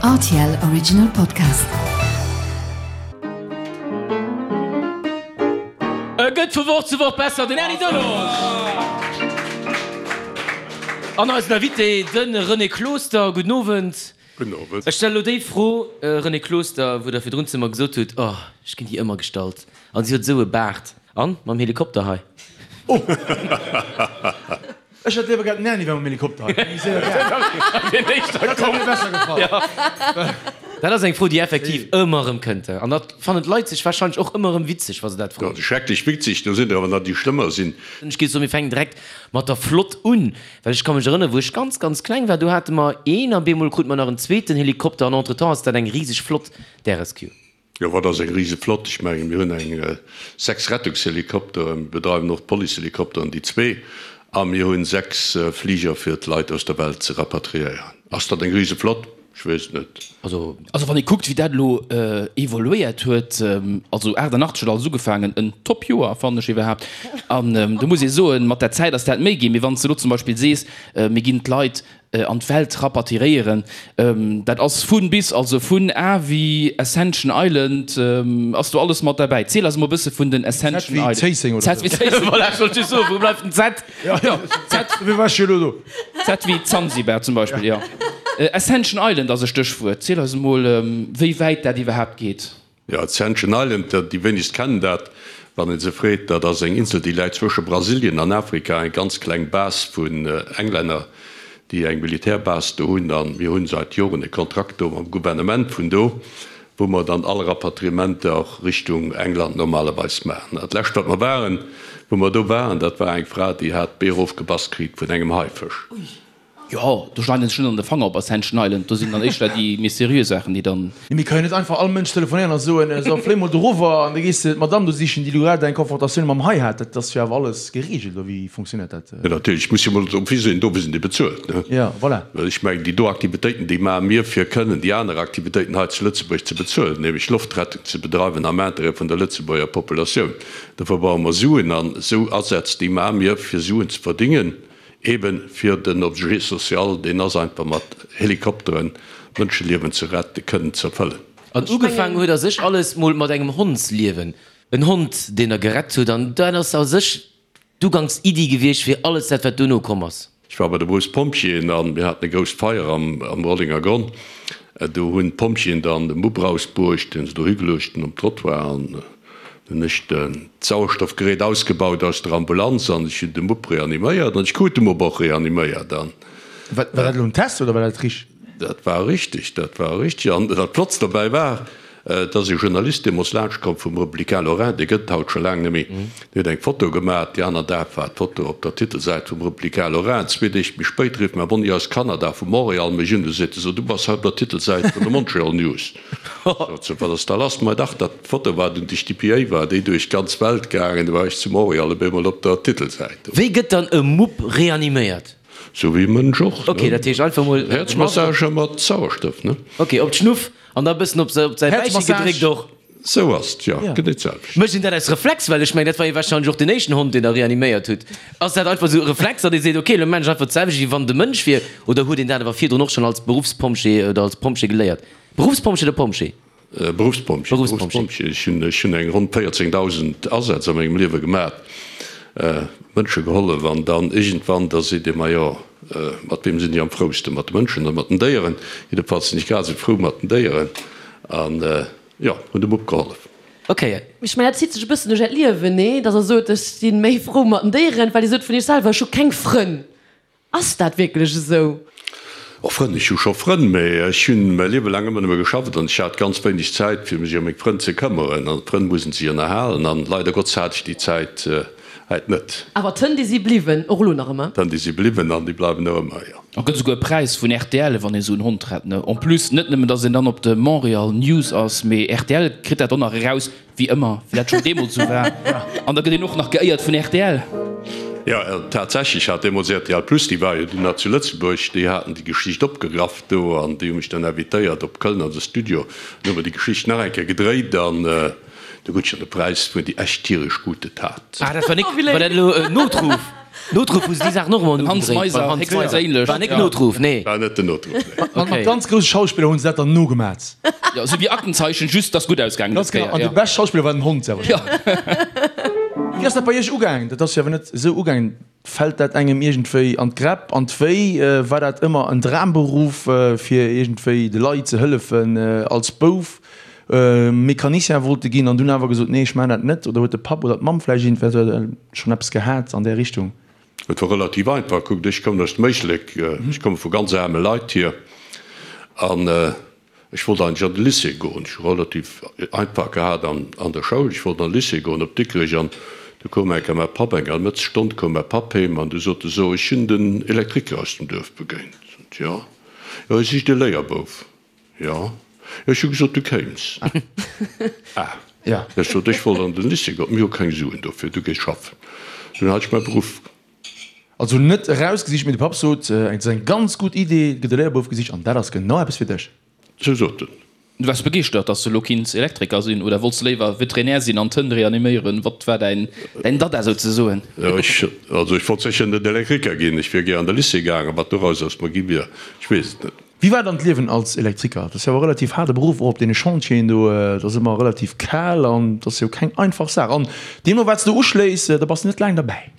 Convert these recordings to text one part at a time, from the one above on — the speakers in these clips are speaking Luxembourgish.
Rtl Original Podcast. E gëtt vu Woch zu Woch besser, den Erny Delage! An eisen Invité, de René Closter. Gudden Owend. Gudden Owend. Ech stelle lo déi Fro, René Closter, wou Der virdrun zu mer gesot hutt, Oh, ech ginn déi ëmmer gestallt. An si huet esou e Baart. An mam Helikopter hei. Oh! Ech hätt léiwer gehat, den Erny wär mam Helikopter hei. Deen éischter Dat hätt mir besser gefall. Dat ass eng Fro, déi effektiv ëmmer erëm kënnt. An dat fannen d'Leit sech warscheinlech och ëmmer erëm witzeg, wa se dat froen. Dat ass schrecklech witzeg. Do sinn der awer nach, déi schlëmmer sinn. Ech géif soen, mir fänken direkt mat der Flott un. Well ech ka mech erënneren, wou ech ganz, ganz kleng war, do hate mer een a bemol krute mer nach en zweeten Helikopter an entretemps ass dat eng riseg Flott, d'RSQ. Jo, wat ass eng rise Flott? Ech mengen, mir hunn eng 6 Rettungshelikopteren, mir bedreiwen och d'Policehelikopteren, déi zwee, a mir hunn 6 Fliger fir d'Leit aus der Welt ze rapatriéieren. Ass dat eng rise Flott? Ech weess et net. Also. Also wann ee kuckt, wéi dat elo evoluéiert huet, also 88 huet alles ugefaangen, en Top-Joer fannen ech iwwerhaapt, an do muss ee soen, mat der Zäit ass dat méi ginn. Mee wann s de elo zum Beispill sees, mir ginn d'Leit an d'Welt rapatriéieren, dat ass vun bis, also vun A wéi Ascension Island ass do alles mat derbäi. Ziel eis emol e bësse vun den Ascension Island. Z wéi Zéisseng oder Z wéi Zéisseng. Voilà, ech wollt just soen, wou bleift den Z? Ja, ja, Z, dofir war ech jo elo do. Z wéi Zanzibar zum Beispill, jo. Ascension Island ass e Stéchwuert. Ziel eis emol, wéi wäit dat iwwerhaapt geet. Jo, Ascension Island, déi wéinegst kennen dat, wann ee se freet. Dat ass eng Insel, déi läit zwësche Brasilien an Afrika, eng ganz kleng Base vun Englänner, déi eng Militärbase do hunn. A mir hunn seit Joren e Kontrakt do mam Gouvernement vun do, wou mer dann all Rapatriementer Richtung England normalerweis maachen. Dat lescht, wat mer waren, wou mer do waren, dat war eng Fra, déi hat d'Bee erofgebass kritt vun engem Haifësch. Jo, do schneiden se sech net an de Fanger op Ascension Island, do sinn dann éischter déi méi seriö Saachen, déi dann. Mee mir ka jo net einfach all Mënsch telefonéieren a soen, so fléi mol dorower an da gees de d'Madame do sichen, déi elo grad eng Konfrontatioun mam Hai hat. Dat ass jo awer alles gereegelt, oder wéi fonctionnéiert dat? Jo natierlech, muss jo mol drop hisinn, dofir sinn déi bezuelt, ne? Jo, voilà. Well ech mengen, déi do Aktivitéiten, déi maache mir, fir kënnen déi aner Aktivitéiten hei zu Lëtzebuerg ze bezuelen, nämlech Loftrettung ze bedreiwen am Intérêt vun der Lëtzebuerger Populatioun. Dofir brauche mer Suen an esou Asätz, déi maache mir, fir Suen ze verdingen. Eben fir den Objet social, deen ass einfach mat Helikopteren Mënscheliewen ze retten, kënnen ze erfëllen. An ugefaangen huet a sech alles mol mat engem Hondsliewen. En Hond, deen der gerett huet. An dat ass a sech d'Ugangsiddi gewiescht fir alles dat, wat duerno komm ass. Ech war bei de Berufspompjeeën a mir haten e grousst Feier am Rollenger Gronn. Do hunn d'Pompjeeën dann de Mupp rausbruecht, dee se do higeluecht hunn um Trottoir. An Hunn ech d'Sauerstoffgerät ausgebaut aus der Ambulanz an ech hunn de Mupp reaniméiert an ech krut de Mupp och reaniméiert an. War dat elo en Test oder war dat richteg? Dat war richteg, dat war richteg. An dat Flottst dobäi war, et ass e Journalist deemools laanscht komm vum Républicain Lorrain, dee gëtt et haut scho laang net méi, deen huet eng Foto gemaach. Déi aner Dag war d'Foto op der Titelsäit vum Républicain Lorrain. Zwee Deeg méi spéit rifft mäi Monni aus Kanada, vu Montréal, mech un, du seet e, So, du bass haut op der Titelsäit vun de Montreal News. Sot se, wat ass da lass? Mei dach, dat d'Foto war dunn duerch d'DPA war déi duerch d'ganz Welt gaangen, du war ech zu Montréal op eemol op der Titelsäit. Wéi gëtt dann e Mupp reaniméiert? Sou wéi e Mënsch och, Ok, dat heescht einfach mol. Häerzmassage mat Sauerstoff, ne? Ok, op d'Schnuff an da bëssen op säi Bäiche gedréckt och. Sou ass et, jo, genee d'selwecht. Mécht een dat aus Reflex? Well ech mengen, dat war jo warscheinlech och den éischten Hond, deen der reaniméiert hutt. Ass dat einfach sou e Reflex, datt ee seet, ok, elo maan ech einfach d'selwecht, wéi wann et e Mënsch wier? Oder huet een dat awer virdrun och schonn als Beruffspompjee oder als Pompjee geléiert? Beruffspompjee oder Pompjee? Beruffspompjee. Beruffspompjee. Ech hunn, ech hunn eng ronn 14.000 Asätz a mengem Liewe gemaat, Mënsche gehollef an dann iergendwann, da seet ee, majo, mat weem sinn ech am frousten, mat de Mënschen oder mat den Déieren? Jiddefalls sinn ech grad esou frou mat den Déieren an, jo, hunn dem Mupp gehollef. Ok. Ech mengen, dat zitt sech e bëssen duerch Äert Liewen, nee? Datt Der sot, ech si méi frou mat den Déieren, well Dir sot vun Iech selwer, ech hu keng Frënn. Ass dat wierklech esou? Oh Frënn, ech hu scho Frënn, mee ech hunn mäi Liewe laang ëmmer nëmme geschafft an ech hat ganz wéineg Zäit fir mech ëm meng Frënn ze këmmeren. An d'Frënn mussen sech ënnerhalen an leider Gottes hat ech déi Zäit häit net. Awer d'Hënn déi si bliwwen, och elo nach ëmmer? D'Hënn déi si bliwwen an déi bleiwen och ëmmer, jo. A gëtt esouguer e Präis vun rtl wann ee sou en Hond rett, ne? En plus net nëmmen datt een dann op de Montreal News ass, mee rtl kritt dat och nach eraus, Wéi ëmmer, wéi dat schonn deemools esou war. An da gëtt een och nach geéiert vun rtl. Jo, tatsächlech hat deemools rtl Plus, déi war jo dunn nach zu Lëtzebuerg, déi haten déi Geschicht opgegraff do an déi hu mech dann invitéiert op Köln an de Studio. Dann hu mer déi Geschicht nach eng Kéier gedréit an do krut ech dann de Präis fir déi echt tieresch gute Tat. Ah, dat war nik, war dat elo en Notruf? Notruf hu se déi Saachen och ëmmer Den Hans ugedréit Meiser, beim Hans Meiser. héchstperséinlech. War net Notruf, nee. War net den Notruf, nee. Mat mat ganz grousse Schauspiller hunn se dat dann nogemat. Jo, esou wéi Aktenzeichen, just dass gutt ausgaangen Ganz dës genau. Kéier, An jo. de beschte Schauspiller war den Hond selwer. Jo. Wéi ass dat bei iech ugaangen? Dat ass jo awer net esou ugaangen. Fält dat engem iergendwéi an d'Gräpp, an d'Wéi? War dat ëmmer en Dramberuff, fir iergendwéi de Leit ze hëllefen? Als Bouf Mecanicien wollte ginn an dunn awer gesot, nee, ech maachen dat net? Oder huet de Papp oder d'Mamm vläicht iergendwéi schonn eppes gehat an där Richtung? Et war relativ einfach. Kuckt, ech kommen aus dem Éislek, ech komme vu ganz aarme Leit hier an Ech wollt eigentlech an de Lycée goen. Ech hu relativ einfach gehat an der Schoul. Ech wollt an de Lycée goen op Dikrech an du koum eng Kéier mäi Papp, eng hallef Stonn koum mäi Papp heem an du sot e, So, ech hunn den Elektriker aus dem Duerf begéint. Sot, Jo. Jo, hie sicht e Léierbouf. Jo. Jo, ech hu gesot, du kéims. Ah. Ech sot, ech wollt an den Lycée goen. Mir hu keng Suen dofir, du gees schaffen. Dunn hat ech mäi Beruff. Also net erausgesicht, mee de Papp sot, et ass eng ganz gutt Idee, et gëtt e Léierbouf gesicht an dat ass genau eppes fir dech. Sou sot en. Du waars begeeschtert, dass de elo kinns Elektriker sinn, oder wollts de léiwer Veterinär sinn an d'Hënn reaniméieren? Wat war däin Dada souzesoen? Jo, ech, also ech wollt sécher net Elektriker ginn. Ech wier gär an de Lycée gaangen. Wat doraus aus mer gi wier, ech weess et net. Wéi war dann d'Liewen als Elektriker? Dat ass jo awer e relativ haarde Beruff, och op deene Chantieren do. Et ass ëmmer relativ kal an et ass jo keng einfach Saach. An deemno wat s de uschléiss, da bass de net laang derbäi.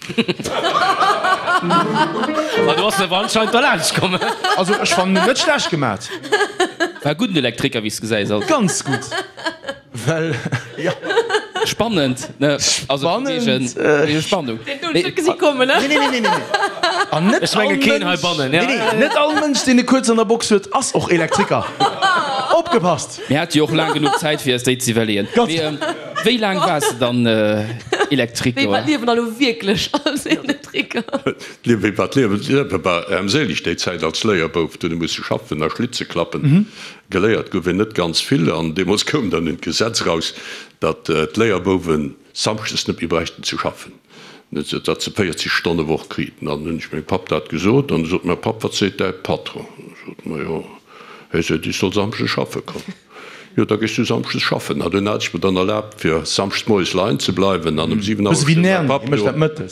Ma du bass awer anscheinend derlaanscht komm. Also ech fannen en net schlecht gemat. War e gudden Elektriker, wéi s de gesäis. Also. Ganz gutt. Well, jo. Spannend, ne? Also vun wegen, wegen Spannung. Deen hunn ech net gesi kommen, ne? Nee, nee, nee, nee, nee. An net Ech menge all keen Mënsch, heibannen, ja. nee, nee, net all Mënsch, deen e kuerz an der Box huet, ass och Elektriker. Opgepasst! Mir hate jo och laang genuch Zäit, fir eis déi ze iwwerleeën. Ganz Mee wéi laang waars de dann Elektriker? Wéi war d'Liewen da lo wierklech als Elektriker? D'Liewen, wéi war d'Liewen? D'Liewe war ärmséileg déi Zäit als Léierbouf. Du hunn ech musse schaffen a Schlitze klappen. Geléiert gouf een net ganz vill an deemools koum dann un d'Gesetz eraus, datt d'Léierbouwe samschdes net méi bräichten ze schaffen, datt se 40 Stonne Woch kriten. An hunn ech mengem Papp dat gesot an du sot mäi Papp, Wat seet däi Patron? Ech sot, Majo, hie seet, ech soll samschdes schaffe kommen. Jo, da gees du samschdes schaffen. An dunn hat ech mer dann erlaabt, fir samschdes moies leien ze bleiwen an um 7 Auer stoung mäi Papp do.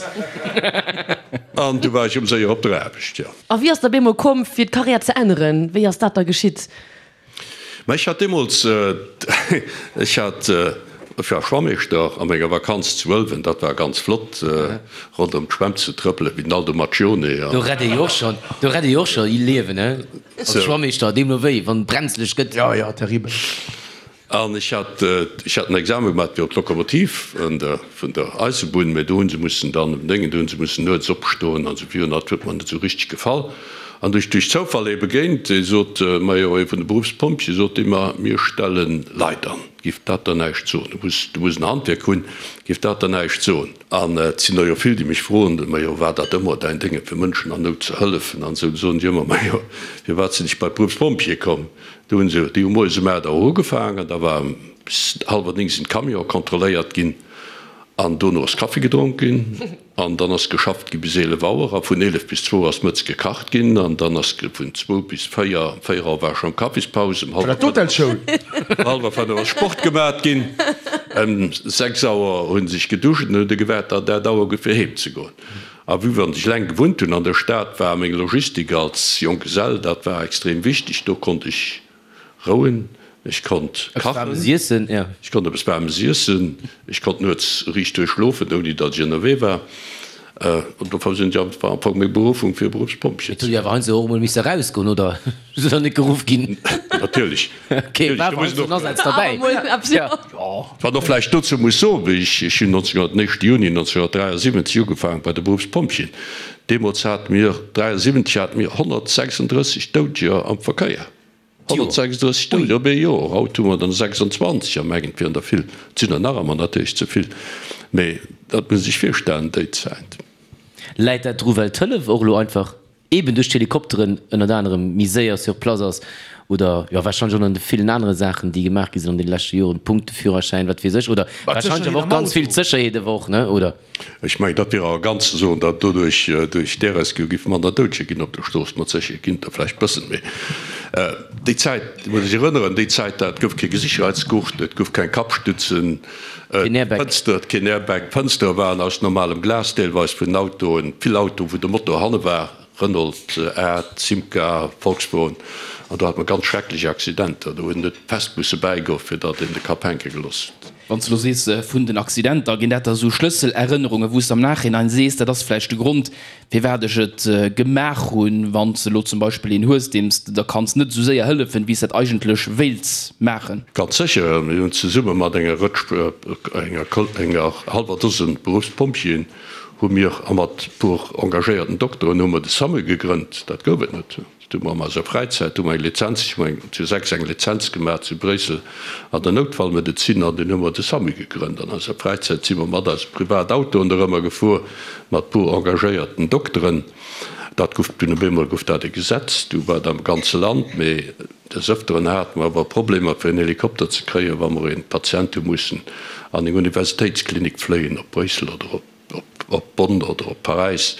An du war ech um séier op der Aarbecht, jo. A wéi ass der bemol komm fir d'Karriär ze änneren? Wéi ass dat da geschitt? Ma ech hat deemools, ech hat, ech war Schwammeeschter a menger Vakanz zu Ëlwen, dat war ganz flott, ronderëm d'Schwämm ze trëppelen, wéi den Aldo Macchione Do an. rett ee jo och schonn, do rett ee jo och scho Liewen, he? Als Schwammeeschter, deemno wéi, wann et brenzlech gëtt. Jo, jo, terribel. An ech hat, ech hat en Examen gemaat fir op d'Lokomotiv vun der, vun der Eisebunn, mä do hu se mussen dann um Déngen, do hu se mussen nuets opstoen an esou virun, dat huet mer net esou richteg gefall. An du ech duerch Zoufall ee begéint, dee sot, Majo, ee vun de Beruffspompjeeë, sot dee mer, mir stelle Leit an, giff dat der näischt soen? Du muss, du muss en Handwierk hunn, giff dat der näischt soen? An et sinn der jo vill, déi mech froen, Majo, war dat ëmmer däin Déngen, fir Mënschen an Nout ze hëllefen an esou? Du soen ech ëmmer, Majo, firwat sinn ech bei d'Beruffspompjeeë komm? Do hunn se, déi hu moies um 8 Auer ugefaangen, da war bis hallwer 9 sinn d'Camionë kontrolléiert ginn an dono ass Kaffi gedronk ginn an dann ass geschafft gi bis 11 Auer a vun 11 bis zwou ass mëtz gekacht ginn an dann ass vun zwou bis véier, um véier Auer war schonn Kaffispaus, um War dat d'Hotelschoul? hallwer fënnef ass Sport gemat ginn, ëm 6 Auer hu sech geduscht an hunn de gewaart, datt dat Auer gouf fir heem ze goen. A vue wann ech laang gewunnt hunn an der Stad, war meng Logistik als Jonggesell, dat war extrem wichteg. Do konnt ech rouen, ech konnt kachen, ech konnt eppes Waarmes iessen, ech konnt nuets riicht duerch schlofen, ouni datt ech ënnerwee war. An dofir sinn ech einfach am Fong meng Berufung fir Beruffspompjee. Et hutt Dir awer heiansdo och emol misse erausgoen, oder? Sidd Der net geruff ginn? Natierlech. Okay, war awer heiansdo en Asaz derbäi. Wat och vläicht dozou muss soen, wéi ech, ech hunn 19, den éischte Juni 1973 ugefaangen bei de Beruffspompjeeën. Deemools hate mir, 73 hate mir 136 Doudeger am Verkéier. 136 Doudeger op ee Joer. Haut hu mer der 26 a mengen, et wieren der vill. Et sinn der nach ëmmer natierlech ze vill, mee dat muss ee sech virstellen déi Zäit. Läit dat dru well d'Hëllef och elo einfach. Eben duerch d'Helikopteren ënnert anerem méi séier sur place ass oder jo warscheinlech och an de villen anere Saachen, déi gemaach gi sinn an deene leschte Joren, Punkteführerschäin, wat weess ech, oder warscheinlech awer och ganz vill d'Sécherheet awer och, ne, oder? Ech mengen, dat wier arrogant ze soen, datt doduerch, duerch d'Air-Rescue giff manner Doudeger ginn op der Strooss. Mat Sécherheet ginn et der vläicht bëssen méi. Déi Zäit, muss ech erënneren, déi Zäit, dat gouf kee Gesicherheitsgurt, et gouf keng Kappstützen, Keen Airbag. D'Fënster, keen Airbag, d'Fënstere waren aus normalem Glas deelweis vun den Autoen, vill Autoen, wou de Motor hanne war, Renault, A, Simca, Volkswagen, an do hat mer ganz schrecklech Accidenter, do hunn et fest musse bäigoen, fir datt een de Kapp hänke gelooss huet. Wann s de elo sees vun den Accidenter, ginn dat da sou Schlësselerënnerungen, wou s de am Nachhinein sees, dat ass vläicht de Grond, firwat ech et gemaach hunn, wann s de elo zum Beispill een hues, deem s de da kanns net esou séier hëllefen, wéi s dat eigentlech wéilts maachen? Ganz sécher. Mir hunn zesumme mat enger Rëtsch, enger, enger hallwer Dosen Beruffspompjeeën hu mir a mat e puer engagéierten Dokteren hu mer de SAMU gegrënnt. Dat gouf et net. Dat hu mer an eiser Fräizäit, hu mer eng Lizenz, ech hu eng zu 6 eng Lizenz gemaach zu Bréissel an der Noutfallmedezin an dunn hu mer de SAMU gegrënnt. An eiser Fräizäit si mer mat eise Privatautoen dorëmmer gefuer mat puer engagéierten Dokteren. Dat gouf dunn op eemol gouf dat e Gesetz, du war dat am ganze Land. Mee des Ëfteren hate mer awer Problemer fir en Helikopter ze kréien, wa mer een Patient hu mussen an eng Universitéitsklinik fléien op Bréissel oder op. Op Bonn oder op Paräis,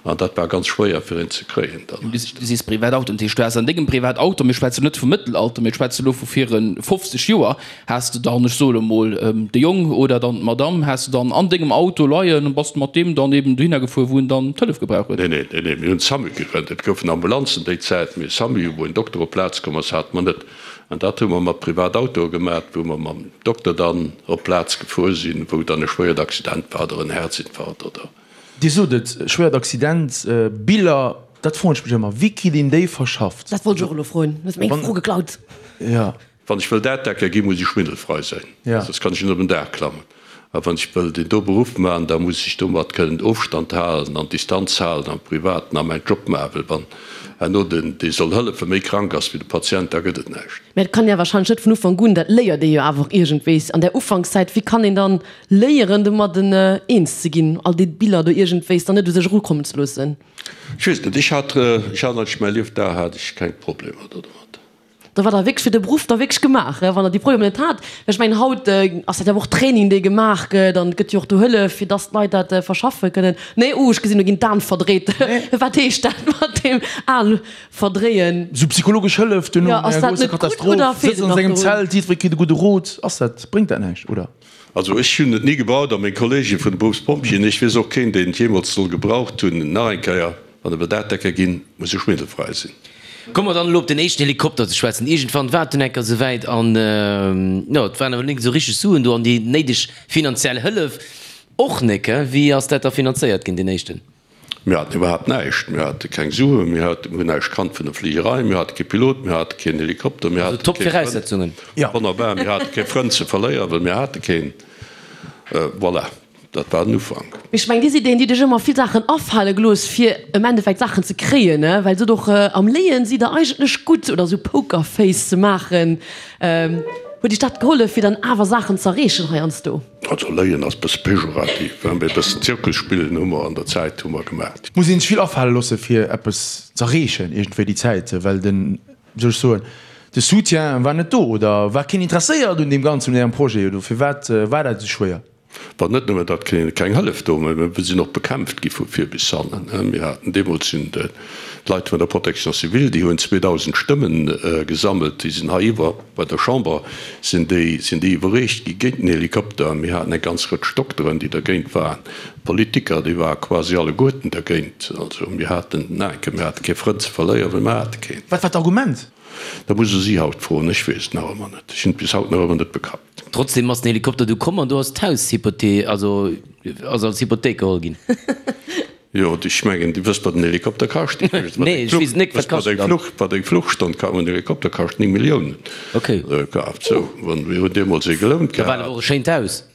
an dat war ganz schwéier fir een ze kréien dann. Du sees Privatauto, dat heescht du has an dengem Privatauto, mir schwätzen net vum Mëttelalter, mir schwätzen elo vu viru 50 Joer, has de dann, ech soe lo mol, de Jong oder dann d'Madame has de dann an dengem Auto leien an bass de mat deem dann eben dohinner gefuer, wou en dann d'Hëllef gebraucht huet? Nee, nee, nee, nee, mir hunn SAMU gegrënnt. Et goufen Ambulanzen déi Zäit, mee SAMU, wou en Dokter op d'Plaz komm ass, hate mer net. An dat hu mer mat Privatautoe gemaat, wou mer mam Dokter dann op d'Plaz gefuer sinn, wou dann e schwéiert Accident war oder en Herzinfarkt oder. Dir sot et, schwéiert Accident, Biller, dat froen ech mech ëmmer, wéi kritt een déi verschafft? Dat wollt ech och elo froen, du hues meng Fro geklaut. Jo. Wann ech wëll Daachdecker ginn, muss ech schwindelfrei sinn, soss kann ech net op en Daach klammen. A wann ech wëll deen do Beruff maachen, da muss ech domat kënnen Ofstand halen an Distanz halen am Privaten a mäin Job maachen, well wann herno den, dee soll hëllefen, méi krank ass wéi de Patient, da gëtt et näischt. Mä et kann ee wahrscheinlech net vun Ufank un, dat léiert ee jo awer och iergendwéis an där Ufankszäit, wéi kann een dann léieren domadden eens ze ginn, all déi Biller do iergendwéis dann net u sech erukommen ze loossen? Ech weess net, ech hat, ech hat eigentlech mäi Liefdag hat ech keng Problemer domat. Da war der wierklech fir de Beruff da wierklech gemaach, wann der déi Problemer net hat. Well ech mengen, haut ass dat jo awer och Training, dee gemaach gëtt an et gëtt jo och do Hëllef, fir dass d'Leit dat verschaffe kënnen. Nee, oh, ech gesinn, do ginn d'Aen verdréit. Wat heescht dat mat deem Aen verdréien? Esou psychologesch Hëllef duerno no enger grousser Katastroph, sëtzt an sengem Zelt, jiddweree kritt e gudde Rot. Ass dat, bréngt dat näischt, oder? Also ech hunn et ni gebraucht a meng Kollege vun de Beruffspompjeeën, ech weess och keen, deen et jeemools soll gebraucht hunn. Nach eng Kéier, Wann e Bedatecker ginn, muss e schwindelfrei sinn. Komme mer dann elo op den éischten Helikopter ze schwätzen. Iergendwann war et dunn enker souwäit an, jo, et waren awer nik esou richteg Suen do an déi néideg finanziell Hëllef och nik. Wéi ass dat da finanzéiert ginn, deen éischten? Mir haten iwwerhaapt näischt. Mir hate keng Suen, mir haten, hunn näischt kannt vun der Fligerei, mir hate kee Pilot, mir hate keen Helikopter, mir Also hate top kee Frënd. Viraussetzungen. Wonnerbar, mir hate kee Frënd ze verléieren, well mir hate keen. Voilà. Dat war den Ufank. Mee ech mengen, Dir sidd een, déi dech ëmmer vill Saachen afale gelooss, fir am Endeffekt Saachen ze kréien, ne? Well sot och, am Léien sidd Der eigentlech gutt, oder esou Pokerface ze maachen. Huet Iech dat gehollef, fir dann awer Saachen z'erreechen heiansdo? Also Léien ass e bësse pejorativ, hein, mee e bëssen Zirkus spillen hu mer an der Zäit hu mer gemaach. Et muss een sech vill afale loosse fir eppes z'erreechen iergendwéi déi Zäit, well den, wéi soll ech soen, de Soutien war net do oder war keen interesséiert un deem Ganzen, un Ärem Projet, oder firwat war dat esou schwéier? War net nëmmen, datt keng Hëllef do war, mä mir sinn och bekämpft gi vu vir bis hannen. Mir haten deemools sinn d'Leit vun der Protection civile, déi hunn 2.000 Stëmme gesammelt, déi sinn hei iwwer bei der Chamber sinn déi sinn déi iwwerreecht gi géint den Helikopter. Mir haten eng ganz Rëtsch Dokteren, déi dergéint waren, Politiker, déi ware quasi alleguerten dergéint. Also mir haten, mir hate kee Frënd ze verléieren, well mir hate keen. Wat war d'Argument? Dat muss e si haut froen, ech weess et nach ëmmer net. Ech hunn et bis haut nach ëmmer net begrappt. Trotzdem ass den Helikopter du komm an du ass d'Haus hypothe also ass als Hypothéik geholl ginn. Jo, ech mengen, Dir wësst, wat en Helikopter kascht. Nee, ech weess et net. Wat kascht en dann? Wat eng Fluchstonn kascht. En Helikopter kascht 9 Milliounen. Okay. Kaaft. Sou, wann mir hunn deemools ee gelount gehat. Da war et awer och e schéint Haus.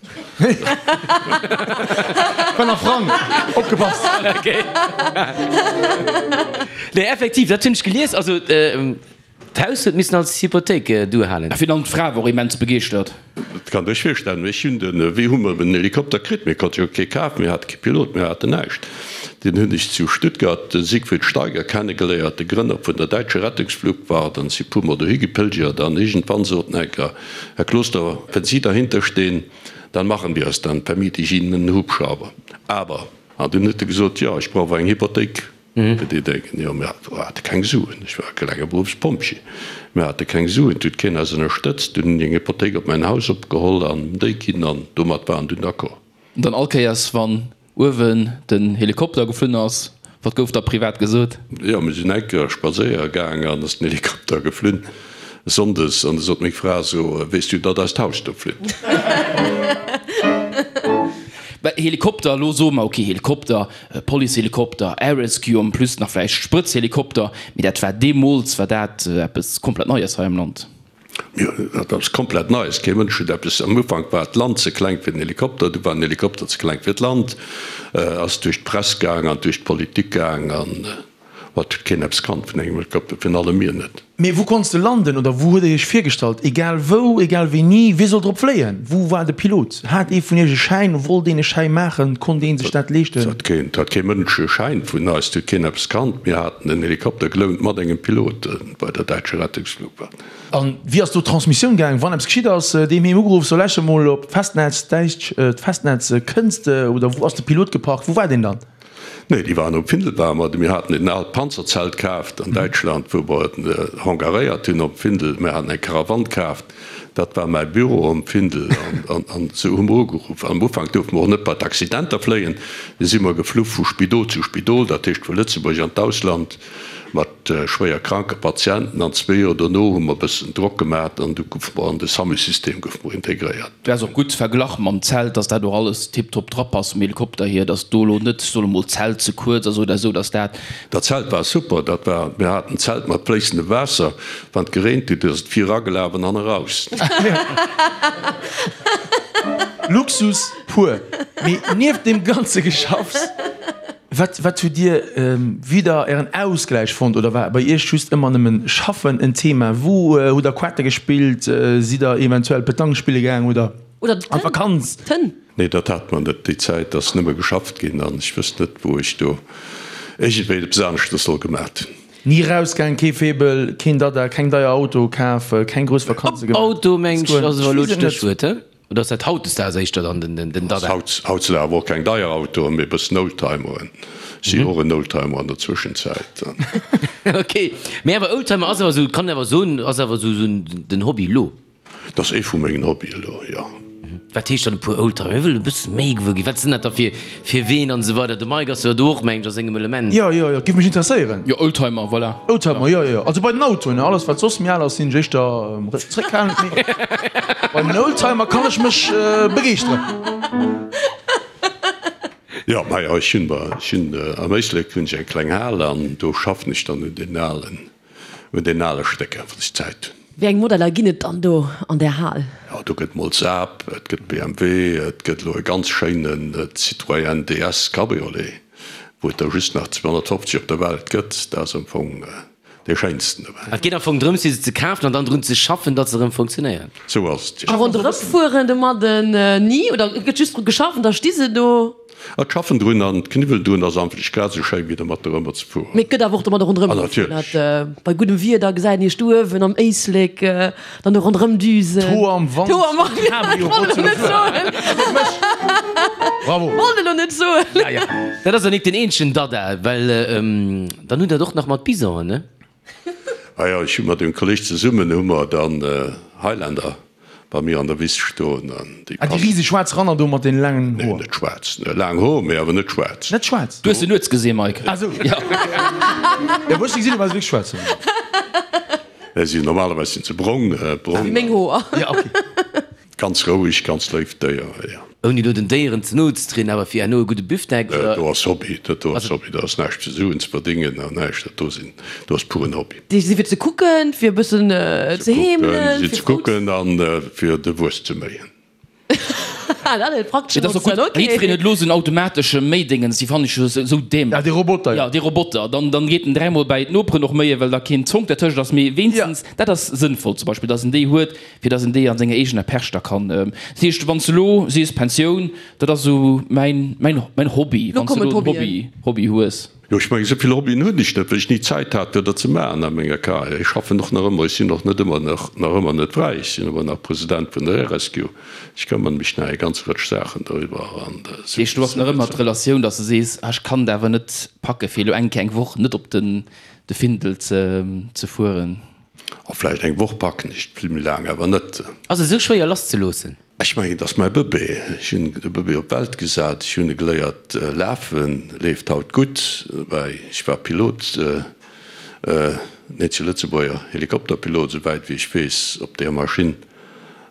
War nach Frang, opgepasst! Okay. Nee, effektiv, dat hunn ech gelies. Also, d'Haus huet missen als Hypothéik duerhalen. A virun allem d'Fra wor immens begeeschtert. Dat kann der iech virstellen. Ech hunn den, wéi hu mer den Helikopter kritt? Mir konnte jo kee kafen, mir hate kee Pilot, mir haten näischt. Deen hunn ech zu Stuttgart, de Siegfried Steiger, kennegeléiert, de Grënner vun der Deutsche Rettungsflugwacht, an si puer mol dohi gepilgert an iergendwann sot en enker, Herr Kloster, wenn Sie dahinter stehen, dann machen wir es, dann vermiete ich Ihnen einen Hubschrauber. Aber, an dunn huet e gesot, jo, ech brauch awer eng Hypothéik fir déi Déngen. Jo, mir hate keng Suen, ech war e klenge Beruffspompjee, mir hate keng Suen, et huet keen eis ënnerstëtzt. Dunn hunn ech eng Hypothéik op mäin Haus opgeholl an déi ginn an domat waren dunn d'accord. An dann all Kéiers wann uewen den Helikopter geflunn ass, wat gouf da privat gesot? Jo, mir sinn eng Kéier spadséiere gaang an ass den Helikopter geflunn, sonndes, an du sot meng Fra so, weess du, datt eist Haus do flitt? Well Helikopter, elo soe mer, ok, Helikopter, Policehelikopter, Air Rescue en plus nach vläicht Sprëtzhelikopter, mee dat war deemools war dat eppes komplett Neies hei am Land. Jo, dat ass komplett Neies. Kee Mënsch huet eppes. Am Ufank war d'Land ze kleng fir den Helikopter, du war den Helikopter ze kleng fir d'Land. Ass duerch d'Press gaang an duerch d'Politik gaang an et huet keen eppes kannt vun engem Helikopter, virun allem mir net. Mee wou konns de landen oder wou huet der iech virgestallt? Egal wou, egal wéini, wie sollt drop fléien? Wou war de Pilot? Hat ee vun iech e Schäin? Wollt een e Schäi maachen? Konnt ee sech dat leeschten? Et hat kee Mënsch e Schäin vun eis, et huet keen eppes kannt. Mir haten en Helikopter gelount mat engem Pilot bei der Deutsche Rettungsflugwacht. An wéi ass do d'Transmissioun gaang, wann eppes geschitt ass? Deem heem ugeruff, so läch emol op d'Festnetz, däitsch, d'Festnetz, kënns de oder wou ass de Pilot geparkt, wou war deen dann? Nee, déi waren op Findel war mer. Mir haten en aalt Panzerzelt kaaft an Däitschland, wou mer et hangaréiert hunn op Findel. Mir haten eng Karawann kaaft, dat war mäi Büro um Findel an esou hu mer ugeruff. Am Ufank duerfte mer och net bei d'Accidenter fléien, du si mer geflu vu Spidol zu Spidol, dat heescht vu Lëtzebuerg an d'Ausland mat. schwéier kranke Patienten an zwee Joer dono hu mer e bëssen Drock gemat an du goufe mer an de SAMU-System goufe mer integréiert. Dat ass och gutt verglach mam Zelt, dass dat och alles tiptop drapasst vum Helikopter hier, dass do elo net, ech soen emol, d'Zelt ze kuerz ass oder esou, dass dat. Dat Zelt war super, dat war, mir haten en Zelt mat fléissendem Waasser, wann et gereent huet, ass et vir eragelaf an hanne raus. Luxus pur. Mee nieft deem ganze Geschaffs. Wat wat hutt Dir wieder Ären Ausgläich fonnt oder war bei Iech just ëmmer nëmmen Schaffen en Thema? Wou hutt der Quette gespillt? Sidd der eventuell Petanque spille gaang oder Oder an d'Vakanz? d'Tënn? Nee, dat hat mer net. Déi Zäit ass nëmme geschafft ginn an ech wësst net, wou ech do iergendwéi eppes aneschtes soll gemat hunn. Ni rausgaang, kee Faible, keen Dada, keng deier Autoe kaf, keng grouss Vakanze gemaach? Auto, mengt ech, ass awer elo d'Stéchwuert, he? Oder ass dat hautdesdaags éischter dann den Dada? Haut sinn awer och keng deier Autoen, mee e bëssen Oldtimeren. Ech si och en Oldtimer an der Zwëschenzäit. Ok, mee awer Oldtimer ass awer esou, kann een awer soen, ass awer esou den Hobby elo? Dat ass ee vu mengen Hobbyen elo, jo. Wat heescht dann e puer Oldtimer? Mir wëllen e bësse méi gewuer ginn. Wat sinn dat da fir fir Ween an esou weider? De Mike ass jo do och, mengen ech, a sengem Element. Jo, jo, jo, giff mech interesséieren. Jo, Oldtimer, voilà. Oldtimer, jo, jo, jo. Also bei den Autoen, alles wat soss méi al ass, sinn ech éischter zréckhalend, mee bei den Oldtimer kann ech mech begeeschteren. Jo, majo, ech hunn, ech hunn am Éislek hunn ech eng kleng Hal an do schaffen ech dann un den alen, un den ale Stécker, wann ech Zäit hunn. Wéi eng Modeller ginn et dann do an där Hal? Jo, do gëtt mol Saab, et gëtt BMW, et gëtt elo e ganz schéinen Citroën DS Cabriolet, wou et der just nach 250 op der Welt gëtt. Dat ass am Fong dee schéinsten dobäi. Et geet am Fong drëms, fir se ze kafen an dann drun ze schaffen, datt se erëm funktionéieren. Sou ass et, jo. A ronderëm fueren domadden ni? Oder gëtt just dru geschafft an da sti se do? Et schaffen drun an d'Kniwwelen drun ass anflech grad esou schéi wéi dermat dorëmmer ze fueren. Mee et gëtt awer och domadder ronderëm Ah, gefuer. natierlech. Dat bei guddem Wieder gesäit een iech do uewen am Éislek dann do ronderëm düsen. D'Hoer am Wand, D'Hoer am Wand, Cabrio wollt elo net soen. Bravo. Wollt elo net soen. Ja, ja. Dat ass jo nik den eenzegen Dada, well dann hutt Der et och nach mat Bisonen, ne? Ah jo, ech hu mat engem Kolleg zesummen hu mer dann Highlander bei mir an der Wiss stoen an déi Ah, déi riseg schwaarz Ranner do mat den laangen Nee, Hoer. net schwaarz. Laang Hoer, mee awer net schwaarz. Net schwaarz? Du hues se nuets gesinn, Mike. Ah sou. Ja, wou ech se gesinn hunn, war se wierklech schwaarz. Nee, si normalerweis sinn se brong, brong. Wéi meng Hoer. Ja, okay. Ganz roueg, ganz léift Déier, jo. Ouni elo den Déieren ze no ze trieden, awer fir herno e gudde Büftek, Dat oder? do ass Hobby, dat do ass Hobby, dat ass näischt fir Suen ze verdéngen an näischt, dat do sinn, do ass puren Hobby. Déi si fir ze kucken, fir e bëssen ze heemelen, fir ze kucken an fir de Wuess ze méien. Dat huet praktesch Dat ass och gutt. Notze, okay. Jiddwereen huet elo esou en automatesche Méidéngens, déi fannen ech jo esou dämlech. Ja, dee Roboter, jo. Ja, dee Roboter. Dann, dann geet en dräimol bäi d'Noperen och méien, well da keen Zonk dertëscht ass. Mee wéinstens, dat ass sënnvoll zum Beispill, dass en déi huet, fir dass en déi a senger eegener Perch da kann. Dat heescht, wann s de elo sees, Pensioun, dat ass esou mäin, mäin, mäin Hobby, Lo wann s de kommen elo en d'Hobbyen. Hobby, Hobby hues. Jo, ech mengen, esou vill Hobbyen hunn ech net, well ech ni Zäit hat, fir dat ze maachen a menger Carrière. Ech schaffen och nach ëmmer, ech sinn och net ëmmer nach, nach ëmmer net fräi, ech sinn ëmmer nach President vun der Air-Rescue. Ech këmmere mech nach eng ganz Rëtsch Saachen doriwwer an Dat heescht, du has nach ëmmer d'Relatioun, dass de sees, ah, ech kann et awer net packe fir elo eng Kéier eng Woch net op den de Findel ze ze fueren. A vläicht eng Woch packen ech, vill méi laang awer net. Ass et esou schwéier lasszeloossen? Ech mengen, et ass mäi Bëbee. Ech hunn de Bëbee op d'Welt gesat, ech hunn e geléiert lafen, leeft haut gutt. Woubäi, ech war Pilot, net zu Lëtzebuerger Helikopterpilot, esouwäit wéi ech weess, op deer Maschinn.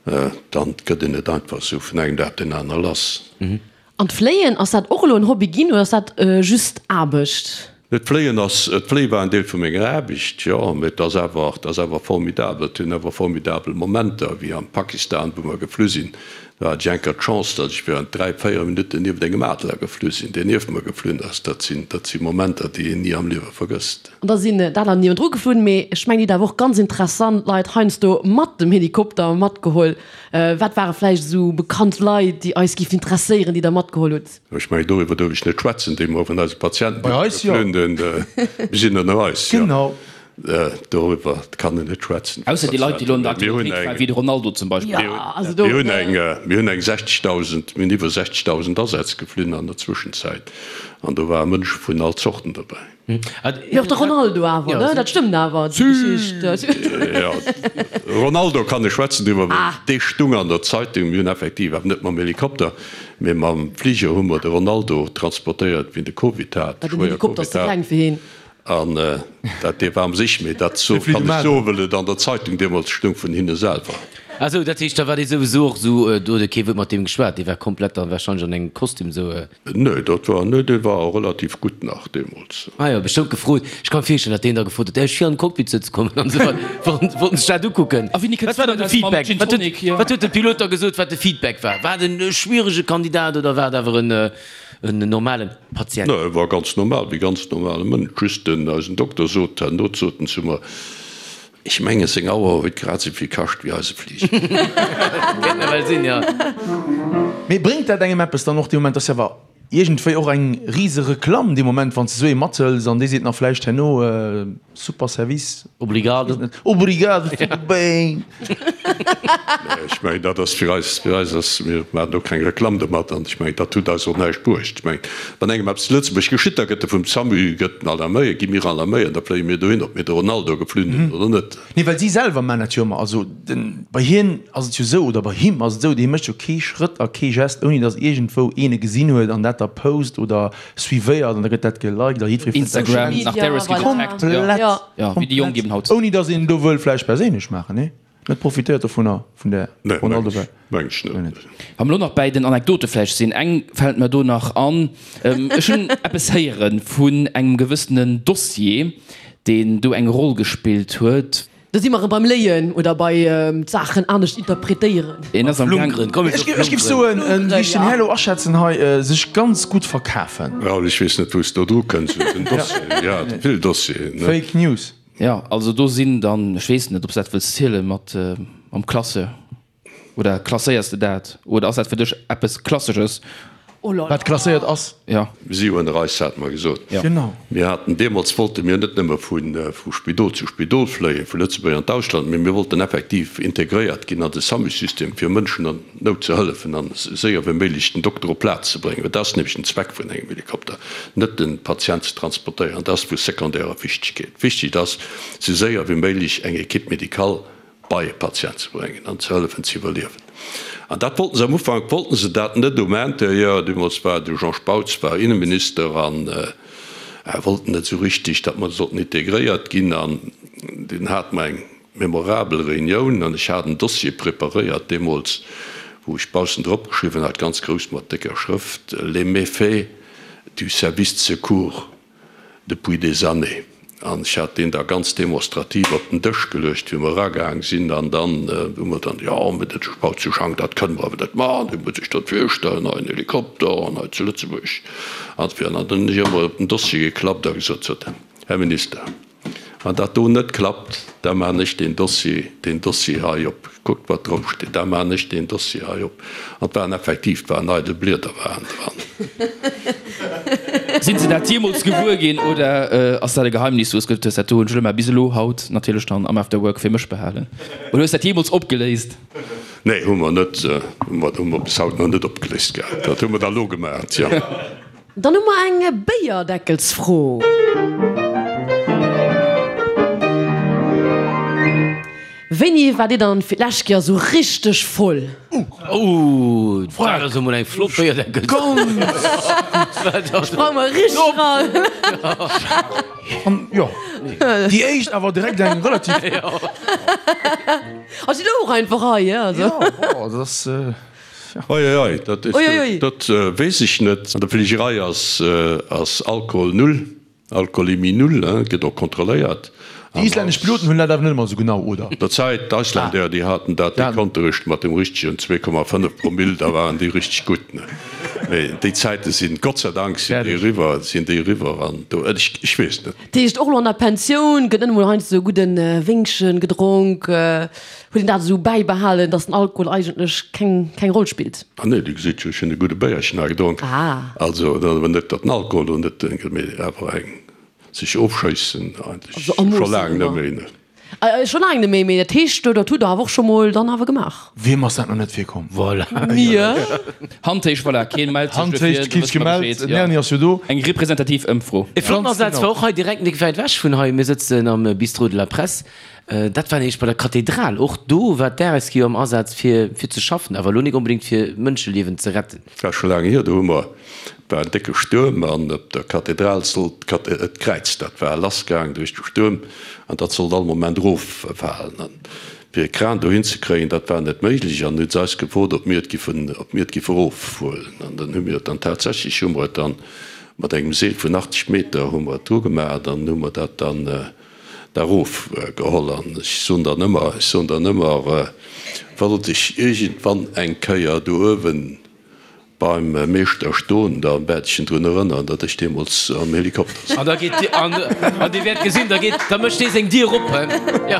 Dann gëtt een net einfach esou vun engem Dag op deen aner lass. An d'Fléien, ass dat och elo en Hobby ginn oder ass dat just Aarbecht? D'Fléien ass, d'Fléie war en Deel vu menger Aarbecht, jo, mee et ass awer, et ass awer formidabel. Et hunn awer formidabel Momenter, wéi am Pakistan, wou mer geflu sinn. Do hat ech eng Kéier d'Chance, datt ech während 3, 4 Minutten nieft engem Adler geflu sinn, deen nieft mer geflunn ass. Dat sinn, dat si Momenter, déi een ni am Liewe vergësst. An da sinn d'Adler niewendru geflunn, mee ech mengen, Dir hutt awer och ganz interessant Leit heiansdo mat dem Helikopter matgeholl. Wat ware vläicht esou bekannt Leit, déi eis géifen interesséieren, déi Der matgeholl hutt? Ech mengen, doriwwer duerf ech net schwätzen, déi mer vun eise Patienten, Bei eis jo. Mir sinn ënner eis, jo. Genau. Doriwwer kann een net schwätzen. Ausser déi Leit, déi elo an der Aktualitéit waren, wéi de Ronaldo zum Beispill. Jo, also do. Mir hunn eng, mir hunn eng 60.000, mir hunn iwwer 60.000 Asätz geflunn an der Zwëschenzäit an do ware Mënsche vun all Zorten dobäi. Mee och de Ronaldo awer, ne? Dat stëmmt awer, déi Geschicht. Jo, Ronaldo kann ech schwätzen driwwer, well dee stung an der Zeitung. Mir hunn effektiv, awer net mam Helikopter, mee mam Fliger hu mer de Ronaldo transportéiert, wéi en de Covid hat, Well den schwéier Helikopter ass Covid ze hat. kleng fir hien. An dat, dee war am sich, mee dat so kann ech soen, well et an der Zeitung deemools stung vun hinne selwer. Ah sou, dat heescht, da war dee souwisou och sou, do huet e kee Wuert mat deem geschwat, dee war komplett dann wahrscheinlech an engem Kostüm sou. Nee, dat war, nee, dee war relativ gutt nach deemools. Ah jo, bestëmmt gefrot. Ech ka mir virstellen, datt deen da gefrot huet, däerf ech vir an den Cockpit sëtze kommen an esou weider. Wollten, wollten sech dat ukucken. A wéini Wat kënns war du dann de dann mam Feedback? Gin Wat huet, Tonic hier? wat huet de Pilot da gesot, wat de Feedback war? War et en schwierege Kandidat oder war et awer en, en normalen Patient? Nee, e war ganz normal, wéi ganz normale Mënsch. Just den, eisen Dokter sot herno, sot en zu mer, Ech mengen, seng Auer huet grad esou vill kascht wéi eise Fliger. Kéint nawell sinn, jo. Mee bréngt dat engem eppes dann och dee Moment? Ass jo awer iergendwéi och eng rise Reklamm dee Moment, wann s de esou ee mathëls an dee seet nach vläicht herno, super Service. Obrigado. Obrigado, tudo bem. Nee, ech mengen, dat ass fir eis, fir eis ass, mir maachen do keng Reklamm domat an ech mengen, dat huet eis och näischt bruecht. Ech mengen, wann engem eppes zu Lëtzebuerg geschitt, da gëtt e vum SAMU gëtt en alarméiert, gi mir alarméiert, da fléie mir dohin, ob mir de Ronaldo geflunn hunn oder net. Nee, well si selwer maachen dat jo ëmmer. Also den, bei hien ass et jo esou, oder bei him ass et esou, dee mécht jo kee Schrëtt a kee Gest, ouni datt iergendwou een e gesinn huet an dat da post oder suivéiert an da gëtt dat geliked a jiddweree fënnt dat Instagram, schéin. nach Darius Komplett, getaggt, jo. Komplett, Jo, wéi déi Jonk eben haut. Ouni datt een do wëll vläicht perséinlech maachen, nee? Net profitéiert dovunner, vun där Nee, Ronaldo meng ech, meng ech net. Wa mer elo nach bäi den Anekdote vläicht sinn, eng fält mer do nach an. Ech hunn eppes héiere vun engem gewëssenen Dossier, deen do eng Roll gespillt huet. Do si mer erëm beim Léien oder bei d'Saachen anescht interpretéieren. Een ass am Gaang. Flunkeren, komm Ech géif géif soen, wéi ech den Här elo aschätzen hei, sech ganz gutt verkafen. Raoul, ech weess net, wou s de do dru kënns, un den Dossieren. Jo, vill Dossieren, ne? Fake News. Jo, also do sinn dann, ech weess net, ob s dat wëlls zielen, mat mam Classeur. Oder klasséiers de dat? Oder ass dat fir dech eppes Klassesches? Oh là là. Wat klasséiert ass. Jo. Si hunn eis, hate mer gesot. Jo. Genau. Mir haten deemools, wollte mir net nëmme vu Spidol zu Spidol fléien, vu Lëtzebuerg an d'Ausland, mee mir wollten effektiv integréiert ginn an de SAMU-System, fir Mënschen an Nout ze hëllefen an esou séier wéi méiglech den Dokter op d'Plaz ze bréngen. Well dat ass nämlech den Zweck vun engem Helikopter, net de Patient ze transportéieren, dat ass vu sekondärer Wichtegkeet. Wichtig ass, esou séier wéi méiglech eng Équipe médicale bei e Patient ze bréngen an ze hëllefen ze iwwerliewen. An dat wollten se am Ufank wollten se dat net um Intérieur. Deemools war de Jean Spautz war Inneminister an wollten net esou richtig, datt mer sollten integréiert ginn. An dunn hate mer eng memorabel Reunioun an ech hat en Dossier preparéiert deemools, wou ech baussen drop geschriwwen hat, ganz grouss mat décker Schrëft, Les méfaits du service de secours depuis des années. An ech hat deen da ganz demonstrativ op den Dësch geluecht, wéi mer eragaang sinn. An dann hu mer dann, jo, mee dat Spauzeschank, dat kënne mer awer net maachen, Dir musst Iech dat virstellen, hei en Helikopter an hei zu Lëtzebuerg. An dann hunn ech emol op den Dossier geklappt a gesot, Sot, Här Minister, Wann dat do net klappt, da maachen ech deen Dossier, deen Dossier hei op. Kuckt, wat drop steet, da maachen ech deen Dossier hei op. An et waren effektiv, et waren eidel Blieder waren dran. Sinn se dat jeemools gewuer ginn oder ass dat e Geheimnis, wou s gesot hues, dat do hunn ech elo mar bis elo haut natierlech dann am After Work fir mech behalen? Oder hues dat jeemools opgeléist? Nee, hu mer net, hu mer, hu mer bis haut nach net opgeléist gehat. Dat hu mer da lo gemaacht, jo. Dann hu mer eng Béierdeckelsfro. Wéini waart Dir dann fir d'lescht Kéier sou richteg voll? Oh, dat ass emol eng flott Béierdeckelsfro. Sprang mer richteg ran. An jo, déi éischt awer direkt eng relativ. Ass si do och einfach hei, also. Jo, bon, dat ass. Oi oi oi, dat Oi oi. Dat weess ech net. An der Fligerei ass ass Alkohol null, Alkoholemie null, hein, gëtt och kontrolléiert. Déi islännesch Piloten hunn dat awer net ëmmer esou genau, oder? Der Zäit, d'Icelandair, déi haten dat, déi konnte richteg mat dem richtegen 2,5 Promill, da waren déi richteg gutt, ne. Mee déi Zäite sinn, Gott sei Dank sinn déi eriwwer, sinn déi eriwwer an do, ech ech weess net. Dat heescht och elo an der Pensioun gëtt net emol heiansdo esou gudde Wéngchen gedronk. Huet een dat esou bäibehalen, dass den Alkohol eigentlech keng keng Roll spillt? Ah nee, Dir gesitt jo, ech hunn e gudde Béierchen hei gedronk. Ah. Also, et ass awer net, datt den Alkohol do net, mee awer eng sech ofschéissen eigentlech Also a scho Moossen laang net ëmmer. méi, ne. Scho laang net méi, mee dat heescht, dat hutt Der awer och scho mol dann awer gemaach? Wiem ass dat nach net virkomm? Voilà. Mir. Hand héich, voilà, keen mellt sech Hand dofir, héich, da kee wësse sech mer gemellt, Bescheed, den jo. Erni ass jo do. Eng representativ Ëmfro. E flotten Ganz Asaz genau. war och hei direkt nik wäit ewech vun hei. Mir sëtzen am Bistrot de la Presse. Dat war nämlech bei der Kathedral. Och do war d'Air-Rescue am Asaz fir fir ze schaffen, awer elo nik onbedéngt fir Mënscheliewen ze retten. Dat war scho laang hier, do hu mer, et war en décke Stuerm an op der Kathedral sollt d'Kräiz, dat war lassgaang duerch de Stuerm an dat sollt all Moment eroffalen. An fir e Kran dohin ze kréien, dat war net méiglech an hu se eis gefrot, ob mir et giffen, ob mir et giffe erofhuelen. An dann hu mir et dann tatsächlech, hu mer et dann mat engem Seel vun 80 Meter hu mer et dru gemaach an hu mer dat dann, da erof geholl an ech soen dann ëmmer, ech soen dann ëmmer, wollt ech iergendwann eng Kéier do uewen beim Meeschter stoen, da wäert ech en drun erënneren, datt ech deemools am Helikopter souz. An da geet Dir, an Dir wäert gesinn, da geet, da mécht dee seng Dier op, hein. Jo,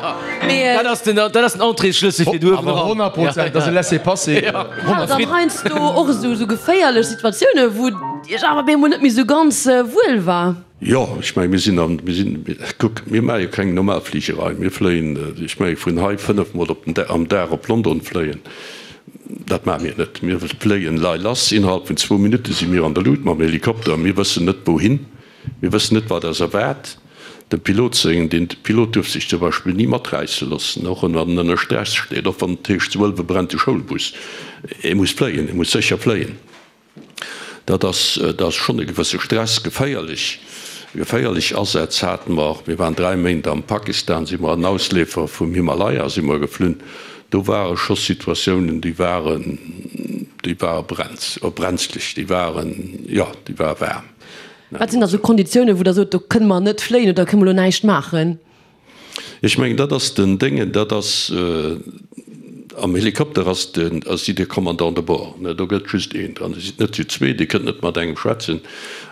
dat ass den, dat ass den Entréesschlëssel fir do uewen Awer eran. 100 Prozent, dat ass e Laissez-passer. Hat Der dann heiansdo och esou geféierlech Situatiounen, wou Iech awer op eemol net méi esou ganz wuel war? Jo, ech menge mir sinn an, mir sinn, kuck, mir maache jo keng normal Fligerei. Mir fléien, ech menge vun hei fënnefmol op den, am Dag op London fléien, dat maache mir net. Mir fléien lei lass, innerhalb vun zwou Minutte si mir an der Luut mam Helikopter. Mir wëssen net wouhin, mir wëssen net wat eis erwaart. Dem Pilot seng, den Pilot duerf sech zum Beispill ni maträisse loossen, och wann en ënner Stress steet, och wann et heescht zu Ëlwe brennt de Schoulbus, e muss fléien, e muss sécher fléien. Dat ass, dat ass schonn e gewësse Stress. Geféierlech, geféierlech Asätz hate mer. Mir waren 3 Méint am Pakistan, si mer an Ausleefer vum Himalaya si mer geflunn. Do ware scho Situatiounen, déi waren, déi ware brenz, brenzlech, déi waren, jo, déi ware waarm. Wat sinn da sou Konditiounen, wou Der sot, do kënne mer net fléien oder kënne mer elo näischt maachen? Ech mengen, dat ass den Déngen, dat ass, am Helikopter ass den, ass sidd Dir Commandant de bord, ne, do gëtt just een dran, Dir sidd net zu zwee, Dir kënnt net mat engem schwätzen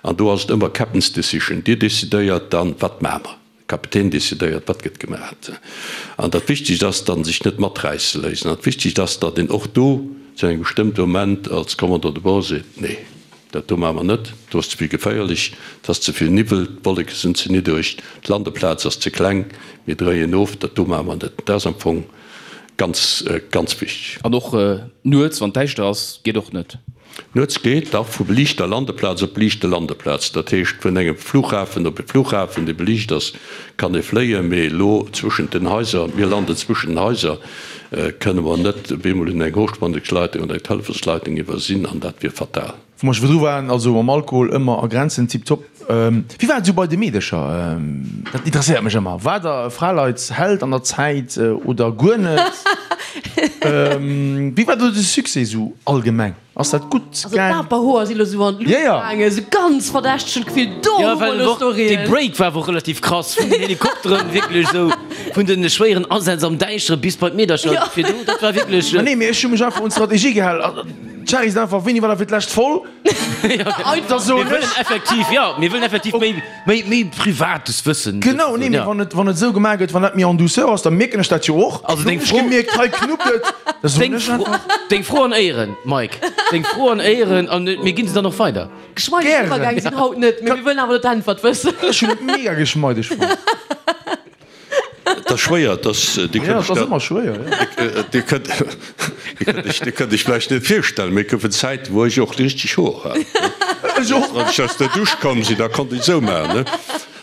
an do ass et ëmmer Captain's decision, Dir decidéiert dann, wat maache mer, de Kapitän decidéiert, wat gëtt gemaach. An dat Wichtegst ass dann, sech net maträisse léissen an d'Wichtegst ass, datt een och do zu engem bestëmmte Moment als Commandant de bord seet, nee. Dat do maache mer net, do ass ze vill geféierlech, et ass ze vill Niwwel, d'Wolleke sinn ze niddereg, d'Landeplaz ass ze kleng, mir dréien of, dat do maache mer net. Dat ass am Fong ganz, ganz wichteg. An och nuets, wann et däischter ass, geet och net? Nuets geet, dach, vu beliichter Landeplaz op beliichte Landeplaz. Dat heescht, vun engem Flughafen op e Flughafen, dee beliicht ass, kann ee fléien, mee elo zwëschent den Haiser, mir landen zwëschen den Haiser, kënne mer net op eemol un eng Hochspannungsleitung oder eng Telefonsleitung iwwersinn an dat wier fatal. Wou mer scho virdru waren, also mam Alkohol ëmmer a Grenzen, tiptop. Wéi war et esou bei de Meedercher? Dat interesséiert mech ëmmer. War der e Fraleitsheld an der Zäit oder guer net? Wéi war do de Succès esou allgemeng? Ass dat gutt Also gaang? d'Aperhoer si lo sou an d'Luucht Ja, ja. gaangen, sou ganz verdächteg, hunn d'Gefill, do Ja, hu mer well elo och dee Storyen. Break war awer och relativ krass, vun den Helikopteren, wierklech esou vun de schwéieren Asätz am Däischtere bis bei d'Meedercher Ja. virdu, dat war wierklech. Ma nee, mee ech hu mech einfach un d'Strategie gehal. D'Cherry sinn einfach, Wéini war dat fir d'lescht voll? Da soen Mir ech. wëllen effektiv, jo, mir wëllen effektiv méi, méi, méi Privates wëssen. Genau, nee, mee wann et, wann et esou gemaach gëtt, wann dat méi en douceur ass, da mierken ech dat jo och. Also deng Hunn ech Fro. gemierkt, hei knuppt et, da soen Deng ech Fro, einfach. deng Fro an Éieren, Mike, deng Fro an Éieren, an mir ginn se dann och weider. Geschmeideg Gären. Iwwergäng sinn haut net, mee mir wëllen awer elo d'Äntwert wëssen. Ech hunn et mega geschmeideg fonnt. Et ass schwéier, et ass, Dir Ja, kënnt et ass iech ëmmer schwéier, jo. dat, Dir kënnt, Dir kënnt iech, Dir kënnt iech vläicht net virstellen, mee et goufen Zäiten, wou ech och richteg Hoer hat. Ech och. Wann ech aus der Dusch komm sinn, da konnt ech esou maachen, ne?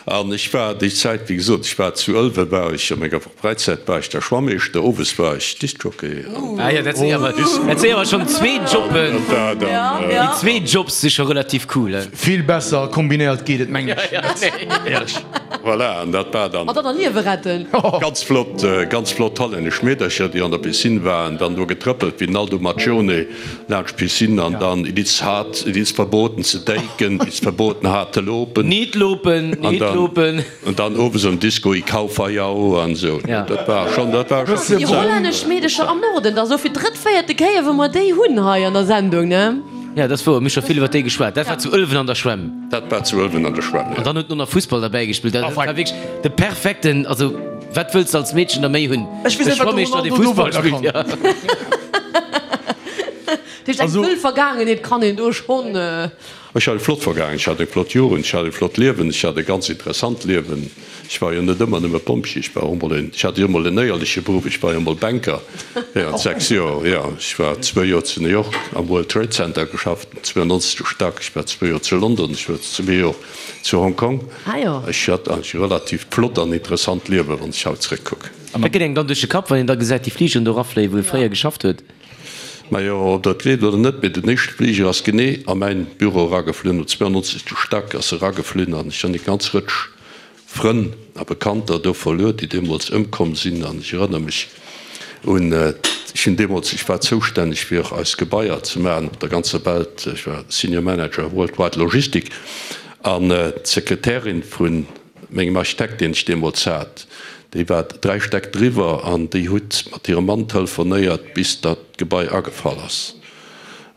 An ech war déi Zäit, wéi gesot, ech war zu Ëlwen, war ech a menger Fräizäit war ech da Schwammeeschter, owes war ech Discjockey an. Ah jo, dat sinn awer, dat sinn awer schonn zwee Jobben. Dat war dann. Déi zwee Jobs si scho relativ cool, he? Vill besser kombinéiert geet et mengen ech net, éierlech. Voilà, an dat war dann. An dann Liewe retten. Ganz flott, ganz flott hollännesch Meedercher, déi an der Piscine waren, dann do getrëppelt wéi den Aldo Maccione laanscht d'Piscine an dann it is hard, it is verboten ze denken, it is verboten hard te lopen. Niet lopen, niet lopen. An dann owes am Disco ik hou van jou an esou. Dat war schon, dat war schon. Déi hollännesch Meedercher am Norden, dat ass elo fir d'drëtt, véierte Kéier wou mer déi hunn hei an der Sendung, ne? Ja, dat ass wouer, mir hu scho vill iwwer déi geschwat. Dat war zu Ëlwen an der Schwämm. Dat war zu Ëlwen an der Schwämm, jo. An dann huet en och nach Fussball derbäi gespillt. Dat war wierklech de perfekten, also wat wëlls de als Meedchen da méi hunn? Ech weess E net, wat de Schwammeeschter, dee Ronaldo do Fussball weider spillt, kann. ja. Dat heescht, eng wëll Vergaangenheet kann een do schonn. Ech hat eng flott Vergaangenheet, ech hat eng flott Jugend, ech hat e flott Liewen, ech hat e ganz interessant Liewen. Ech war jo net ëmmer nëmme Pompjee, ech war och emol en, ech hat jo emol en éierleche Beruff, ech war jo emol Banker während 6 Joer, jo. Ech war zwou Joer zu New York am World Trade Center geschafft, am 92. Stack, ech war zwou Joer zu London, ech war zwee Joer zu Hong Kong. Ech hat eigentlech e relativt flott an interessant Liewen, wann ech haut zréckkucken. Wat geet engem dann duerch de Kapp, wann een da gesäit déi Fligeren do erafléien, wou ee fréier geschafft huet? Majo, ob der et gleeft oder net, mee den éischte Fliger ass genee a mäin Büro erageflunn, um 92. Stack ass e erageflunn an ech hunn eng ganz Rëtsch Frënn a Bekannter do verluer, déi deemools ëmkomm sinn. An ech erënnere mech un, ech hunn deemools, ech war zoustänneg fir eis Gebaier ze maachen op der ganzer Welt, ech war Senior Manager Worldwide Logistik, an d'Sekretärin vu mengem Architekt, deen ech deemools hat, déi war 3 Stäck driwwer an déi huet mat hirem Mann telefonéiert, bis datt d'Gebai agefall ass.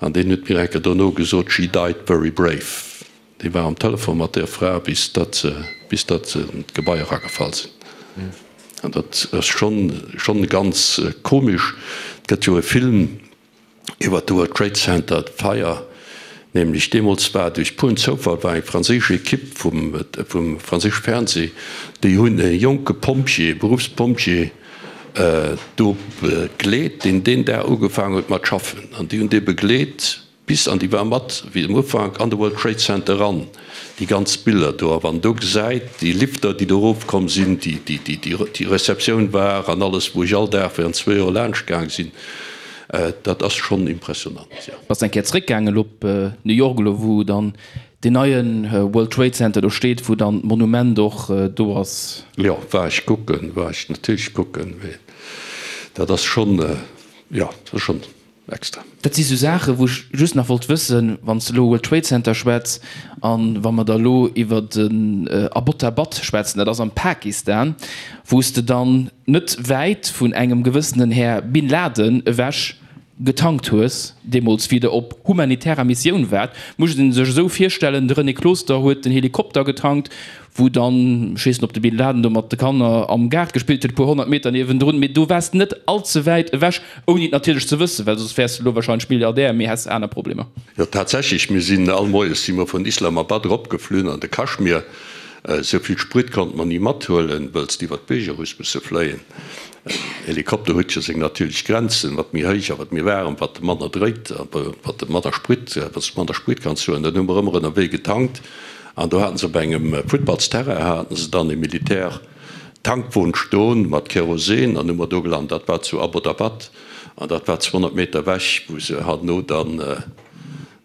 An deen huet mir eng Kéier dono gesot, She died very brave. Dee war am Telefon mat där Fra, bis datt se, bis datt se an d'Gebai eragefall sinn. An dat ass schonn, schonn ganz komesch. Et gëtt jo e Film iwwer de World Trade Center, d'Feier, nämlech deemools war duerch puren Zoufall war eng franséisch Ekipp vum, vum franséische Fernseh, déi hunn e jonke Pompjee, Beruffspompjee do begleet, deen deen Dag ugefaangen huet mat schaffen. An déi hunn dee begleet Bis an déi war mat wéi um Ufank an de World Trade Center eran, déi ganz Biller do. A wann do gesäit, déi Lifter, déi do erofkomm sinn, déi, déi, déi, déi Receptioun war an alles, wou ech all Dag während zwou Joer laanscht gaang sinn, dat ass schonn impressionant, jo. Bass eng Kéier zréckgaangen elo op New York, elo wou dann deen neien World Trade Center do steet, wou dann d'Monument och do ass? Jo, war ech kucken, war ech natierlech kucken, mee dat ass schonn, jo, dat ass schonn. Extra. Dat si sou Saachen, wou ech just nach wollt wëssen, wann s de elo World Trade Center schwätz an wa mer da elo iwwer den Abbottabad schwätzen, dat ass am Pakistan, wou s de dann net wäit vun engem gewëssenen Här Bin Laden ewech getankt hues, deemools wéi der op humanitärer Missioun waart, muss een sech esou virstellen, de René Closter huet den Helikopter getankt, wou dann, ech weess net, ob de Bin Laden do mat de Kanner am Gaart gespillt huet, e puer 100 Meter niewendrun, mee do waars de net all ze wäit ewech, ouni et natierlech ze wëssen, well soss wäers de elo wahrscheinlech Milliardär, mee häss aner Problemer. Jo, tatsächlech, mir sinn all Moies si mer vun Islamabad eropgeflunn an de Kaschmir. Esou vill Sprit konnte mer ni mathuelen, wëlls de iwwer d'Bierger hues musse fléien. En Helikopter huet jo seng natierlech Grenzen, wat méi héich a wat méi waarem, wat e manner dréit a wat e manner Sprit, wat s de manner Sprit kanns huelen. Dann hu mer ëmmer ënnerwee getankt. An do haten se op engem Futtballsterrain haten se dann e Militär-Tankwon stoen mat Kerosin an hu mer do gelant. Dat war zu Abbottabad an dat war 200 Meter ewech, wou se herno dann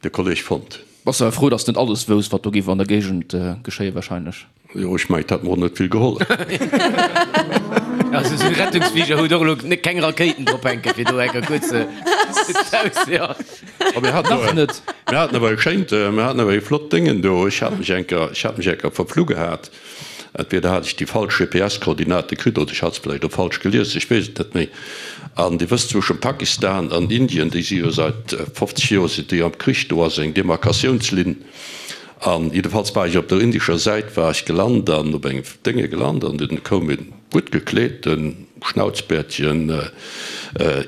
de Kolleg fonnt hunn. Bass awer frou, dass de net alles wousst, wat do géif an der Géigend geschéien wahrscheinlech. Jo, ech mengen, et hätt mer och net vill gehollef. Also esou e Rettungsfliger huet och elo keng Rakéiten drop hänken, fir do enker kuerz d'Haus, jo. A mir haten Nach net. Mir haten awer e schéint, mir haten awer e flott Déngen do. Ech hat mech enker, ech hat mech enker verflu gehat. Entweder hat ech déi falsch GPS-Koordinate kritt oder ech hat se vläicht och falsch gelies, ech weess et net méi. An Dir wësst, zwëschen Pakistan an Indien, déi si jo seit 50 Joer sinn déi am Krich, do ass eng Demarkatiounslinn. An jiddefalls war ech op der indescher Säit war ech gelant an op engem Dénge gelant an dunn koum e gutt gekleeten, schnauzbäertegen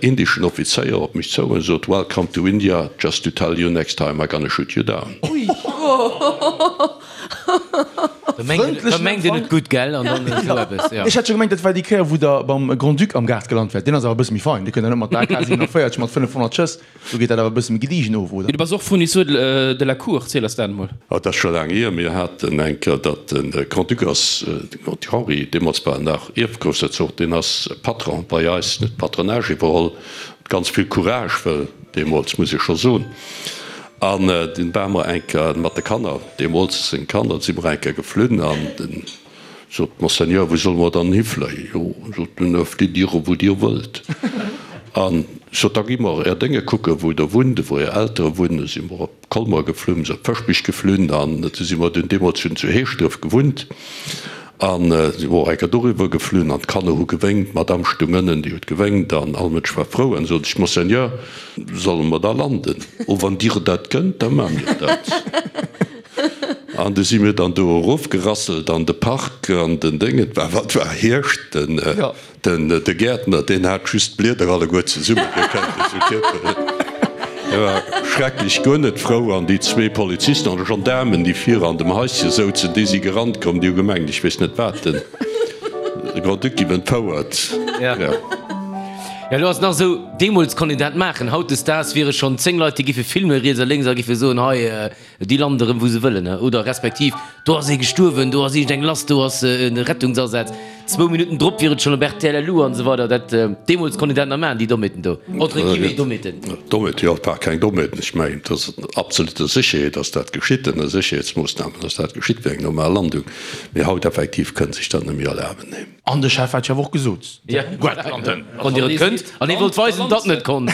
indeschen Offizéier op mech zou an sot, Welcome to India, just to tell you next time I gonna shoot you down. Da mengt een et gutt, gell? An dann esou eppes, jo. Ech hat scho gemengt, dat war déi Kéier, wou der beim Grand-Duc am Gaart gelant waart. Deen ass awer e bësse méi fein. Dee kënnt der net mat der AK 47 mat 500 Schëss. Do geet dat awer e bësse méi gediegen of, oder? Du bass och Fournisseur de la Cour, ziel eis dat emol. Oh, dat ass scho laang hier. Mir haten eng Kéier, datt de Grand-Duc ass, de Grand-Duc Henri, deemools war en nach Ierfgroussherzog, deen ass Patron bei eis, huet d'Patronage iwwerholl, mat ganz vill Courage, well deemools, muss ech scho soen, an dunn ware mer eng Kéier mat de Kanner, deemools seng Kanner, si mer eng Kéier geflunn an den. Sot, Monseigneur, wou solle mer dann hifléien? Jo, sot en, flitt Dir wou Dir wëllt. An sot, da gi mer Är Dénge kucken, wou Der wunnt, wou Är Eltere wunnen. Du si mer op Colmer geflunn, se op Fëschbech geflunn an du si mer dunn deemools hunn zu Heeschdref gewunnt an si mer och eng Kéier doriwwer geflunn an d'Kanner hu gewéngt, d'Madame stung ënnen, déi huet gewéngt an all Mënsch war frou. An sot ech, Monseigneur, solle mer da landen? Oh, wann Dir dat kënnt, da maache mir dat. An du si mir dann do erofgerasselt an de Park an den Déng. Et war, wat war, Hierscht. Den, den, de Gäertner, deen hat just d'Blieder alleguer zesummegekënnt, esou Kierpelen. Hie war schrecklech guer net frou. An déi zwee Polizisten an Gendaarmen, déi vir an dem Haische souzen, déi si gerannt komm, déi hu gemengt, ech weess net wat, den Grand-Duc giff entfouert. Ja. Ja, elo ass et nach esou, deemools konnt een dat maachen. Hautdesdaags wiere schonn 10 Leit, déi giffe filmen, riets a lénks, a giffe soen, hei, Déi landen erëm wou se wëllen, oder respektiv do ass ee gestuerwen, do ass iergend eng lass, do ass e Rettungsasaz. Zwou Minutten drop wier et schonn op rtl LU an esou weider. Dat, deemools konnt een dat nach maachen, déi Dommheeten do, entre guillemets Dommheeten. Dommheeten, jo, et war keng Dommheeten. Ech mengen, et ass an absoluter Sécherheet ass dat geschitt, ënner Sécherheetsmoossnamen ass dat geschitt, wéi eng normal Landung. Mee haut effektiv kënnt sech dat net méi erlaben, nee. An de Chef hat jo awer och gesot, Guet landen, wann Dir et kënnt. An hie wollt weisen, datt en et konnt.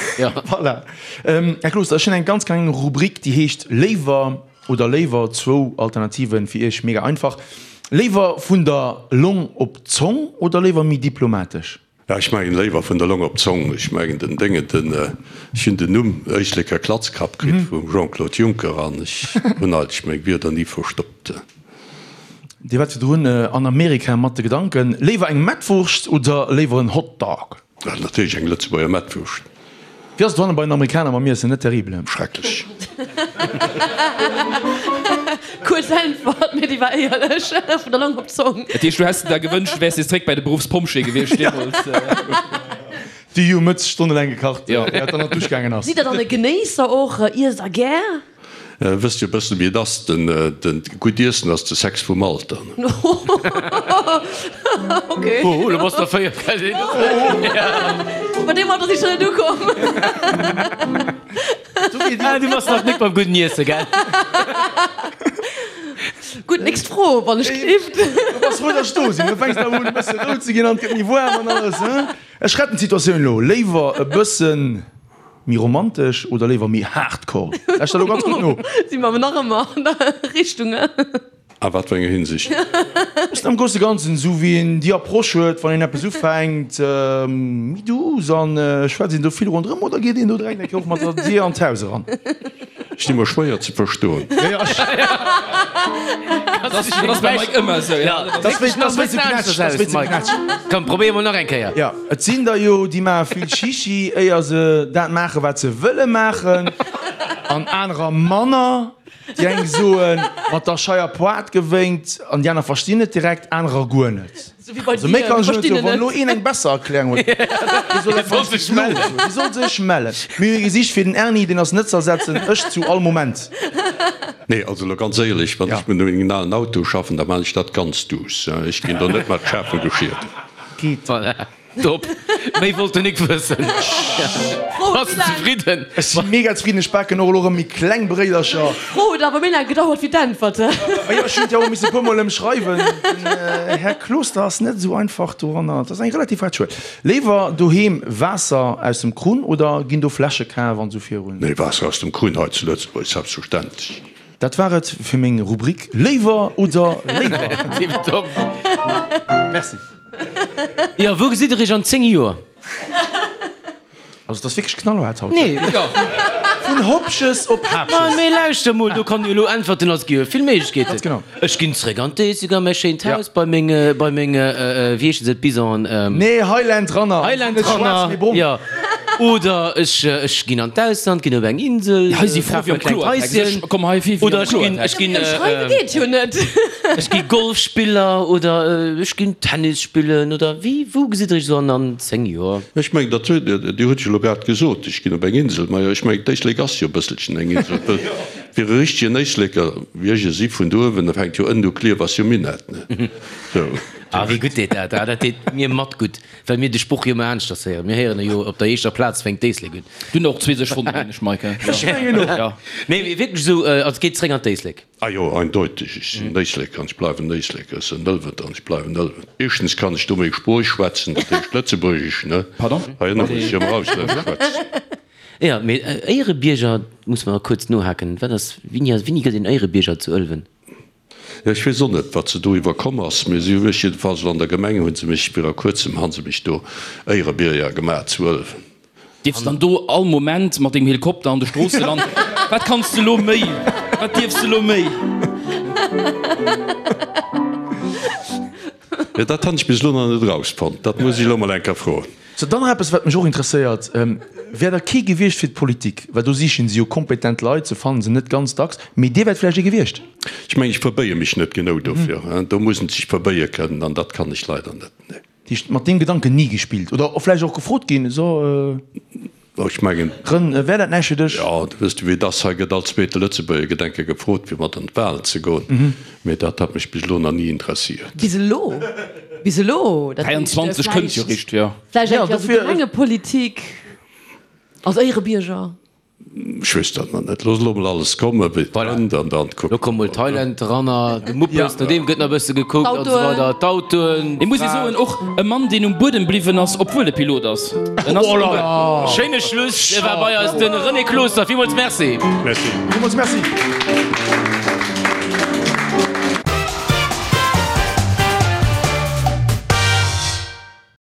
Voilà. Här Closter, ech hunn eng ganz kleng Rubrik, déi heescht Léiwer oder léiwer. Zwou Alternativen, fir Iech mega einfach. Léiwer vun der Long op d'Zong oder léiwer méi diplomatesch? Ja, ech mengen léiwer vun der Long op d'Zong. Ech mengen den Déngen, den, ech hunn den Numm Éisleker Klatzkapp kritt vum Jean-Claude Juncker an ech hunn eigentlech meng Wierder ni verstoppt. Dir waart virdrun an Amerika mat de Gedanken, léiwer eng Mettwurscht oder léiwer en Hotdog? Natierlech eng Lëtzebuerger Mettwurscht. Wéi ass et dohannen bei den Amerikaner mam Iessen? Net terrible? Schrecklech. Kuerz Äntwert, mee déi war éierlech, vun der Long op d'Zong. Dat heescht, du häss der da gewënscht, du wäers nees zréck bei de Beruffspompjee gewiescht deemools? Déi hu Mëtz stonnelaang gekacht, ier et dann an d'Dusch gaangen ass. Sidd der dann e Genéisser och? Iesst der gär? Wësst jo bëssen wéi et ass, den gutt Iessen ass de Sex vum Alter. Ok. Oh, lo bass der 4, gell? Bei deem Alter si ech nach net ukomm. Ah, du bass nach net beim gudden Iessen, gell? Gutt, nächst Fro, wann ech gleeft. Du bass frou, dass ech do sinn. Du fänks awer un e bësse rout ze ginn an et gëtt méi waarm an alles, hein? Ech retten d'Situatioun elo. Léiwer e bëssen Méi romantesch oder léiwer méi hardcore? Lauschter elo ganz gutt no. Si mer nach ëmmer an der Richtung, he? A wat fir enger Hinsicht? Bëssen am grousse Ganzen, esou wéi een déi Approche huet, wann een eppes ufänkt, méi douce an schwätzt een do vill ronderëm oder geet een do direkt eng Kéier och mat der Dier an d'Haus eran? Ech di mer schwéier ze verstoen. Dat ass beim Mike ëmmer esou, ja. Dat ass wéi ze knätschen, dat ass wéi ze knätschen. Komm, probéier mol nach eng Kéier. Jo, et sinn der jo, déi maache vill Chichi, éier se dat maachen, wat se wëlle maachen, an anerer manner. Déi eng soen, mat der Scheier Poart gewénkt, an déi aner verstinn et direkt, anerer guer net. Also méi kann ech net soen. Wann elo een eng besser Erklärung huet, dee soll einfach sech mellen. Dee soll sech mellen. Mir hu ee gesicht fir den Erni, deen ass net ze ersetzen, ech zu all Moment. Nee, also elo ganz éierlech, wann ech mat mengem alen Auto schaffen, da maan ech dat ganz duuss. Ech ginn do net mat schaarfem Geschier. Geet. Voilà. Top. Méi wollt den Nick wëssen. Bass de zefridden? Ech si mega zefridden. Ech baken och elo erëm méi kleng Bréidercher. D'Fro huet awer méi laang gedauert wéi d'Äntwert. Majo, ech hunn et jo och misse e puer mol ëmschreiwen. Den Här Closter ass net esou einfach doranner. Et ass eng relativ haart Schuel. Léiwer doheem Waasser aus dem Krunn oder ginn do Fläsche kaf an esou virun? Nee, Waasser aus dem Krunn hei zu Lëtzebuerg, selbstverständlech. Dat war et fir meng Rubrik Léiwer oder léiwer. Tipptopp. Merci. Jo, wou gesitt der iech an 10 Joer? Also et ass wierklech knallhaart haut. Nee. Vun Hopches op Haapches. Ma mee lauschter mol, do kann jo elo äntwerten, also et gi jo vill Méiglechkeeten. Ganz genau. Ech ginn zréck an d'Éislek a mäi schéint Haus bei meng, bei meng, wéi heeschen se, d'Bisonen? Nee, Highland Runner. Highland Net schwaarz, Runner, mee brong. jo. Oder ech, ech ginn an d'Ausland, ginn op eng Insel, Hei si fro kafe wéi mer am e klengt Kloertext. Haischen. Ech komm hei vir wéi Oder am ech ginn, Kloertext. ech ginn, Schreiwe geet jo net. Ech gi Golfspiller oder ech ginn Tennis spillen oder wéi, wou gesitt der iech esou an an 10 Joer? Ech mengen, dat huet, Dir hutt jo elo grad gesot, ech ginn op eng Insel. Majo, ech mengen, d'Éislek ass jo e bësselchen eng Insel. Well fir e richtegen Éisleker, wéi ech e si vun do uewen, da fänkt jo ënnen u Klierf, ass jo Minett, ne? Sou. Ah, wéi gutt deet dat! Ah, dat deet mir mat gutt, well mir de Sproch jo ëmmer aneschters héieren. Mir héieren e jo, op der éischter Plaz fänkt d'Éislek un. Du hunn och zwee sech fonnt, mengen ech, Mike. Ech mengen och. Jo. Nee, mee wierklech esou, also et geet zréck an d'Éislek. Ah jo, eindeuteg, ech sinn Éisleker an ech bleiwen Éisleker, ech sinn Ëlweter an ech bleiwen Ëlwen. Éischtens kann ech do meng Sprooch schwätzen, dat heescht Lëtzebuergesch, ne? Pardon? Hei ënne muss ech jo emmer auslännesch schwätzen. Jo, mee Éierebierger, muss mer kuerz nohaken, wat ass, wéini ass, wéini gëtt een Éierebierger zu Ëlwen? Jo, ech weess och net, wat se do iwwerkomm ass, mee si hu mech jiddefalls elo an der Gemeng hu se mech, viru kuerzem han se mech do Éierebierger gemaach zu Ëlwen. Dierfs dann do all Moment mat dengem Helikopter an de Stroosse landen? Wat kanns de lo méi? Wat dierfs de lo méi? Jo, dat han ech bis elo nach net erausfonnt. Dat muss ech elo mol eng Kéier froen. Sou, dann nach eppes, wat mech och interesséiert, Wär der kee gewiescht fir d'Politik? Well do sichen se jo kompetent Leit, se fannen se net ganz dacks, mee Dir wäert vläicht ee gewiescht? Ech mengen, ech verbéie mech net genou dofir. Do muss en sech verbéie kënnen, an dat kann ech leider net, nee. Heescht, mat deem Gedanken ni gespillt oder vläicht och gefrot ginn, so Ech mengen. Rën, wär dat näischt fir dech? Jo, du wëss du wéi et ass, hei gëtt all zweete Lëtzebuerger Gedenke gefrot fir mat an d'Wahlen ze goen, mee dat hat mech bis elo nach ni interessiert. Bis elo? Bis elo? Dat heescht, 23 kënnt jo vläicht, richt, jo. vläicht Ja, eng Kéier esou dofir. Gemengepolitik als Éierebierger. Ech weess dat nach net. Looss elo mol alles kommen, wéi et kënnt, an dann kucke Lo komm mol mer. Thailand eranner, de Muppes, no deem gëtt nach e bësse gekuckt an esou weider, d'Autoen. Et muss ee soen, och e Mann, deen um Buedem bliwwen ass, obwuel e Pilot ass. En ass Oh là là! Schéine Schluss. Et war bei eis de René Closter. Villmools Merci. Merci. Villmools Merci.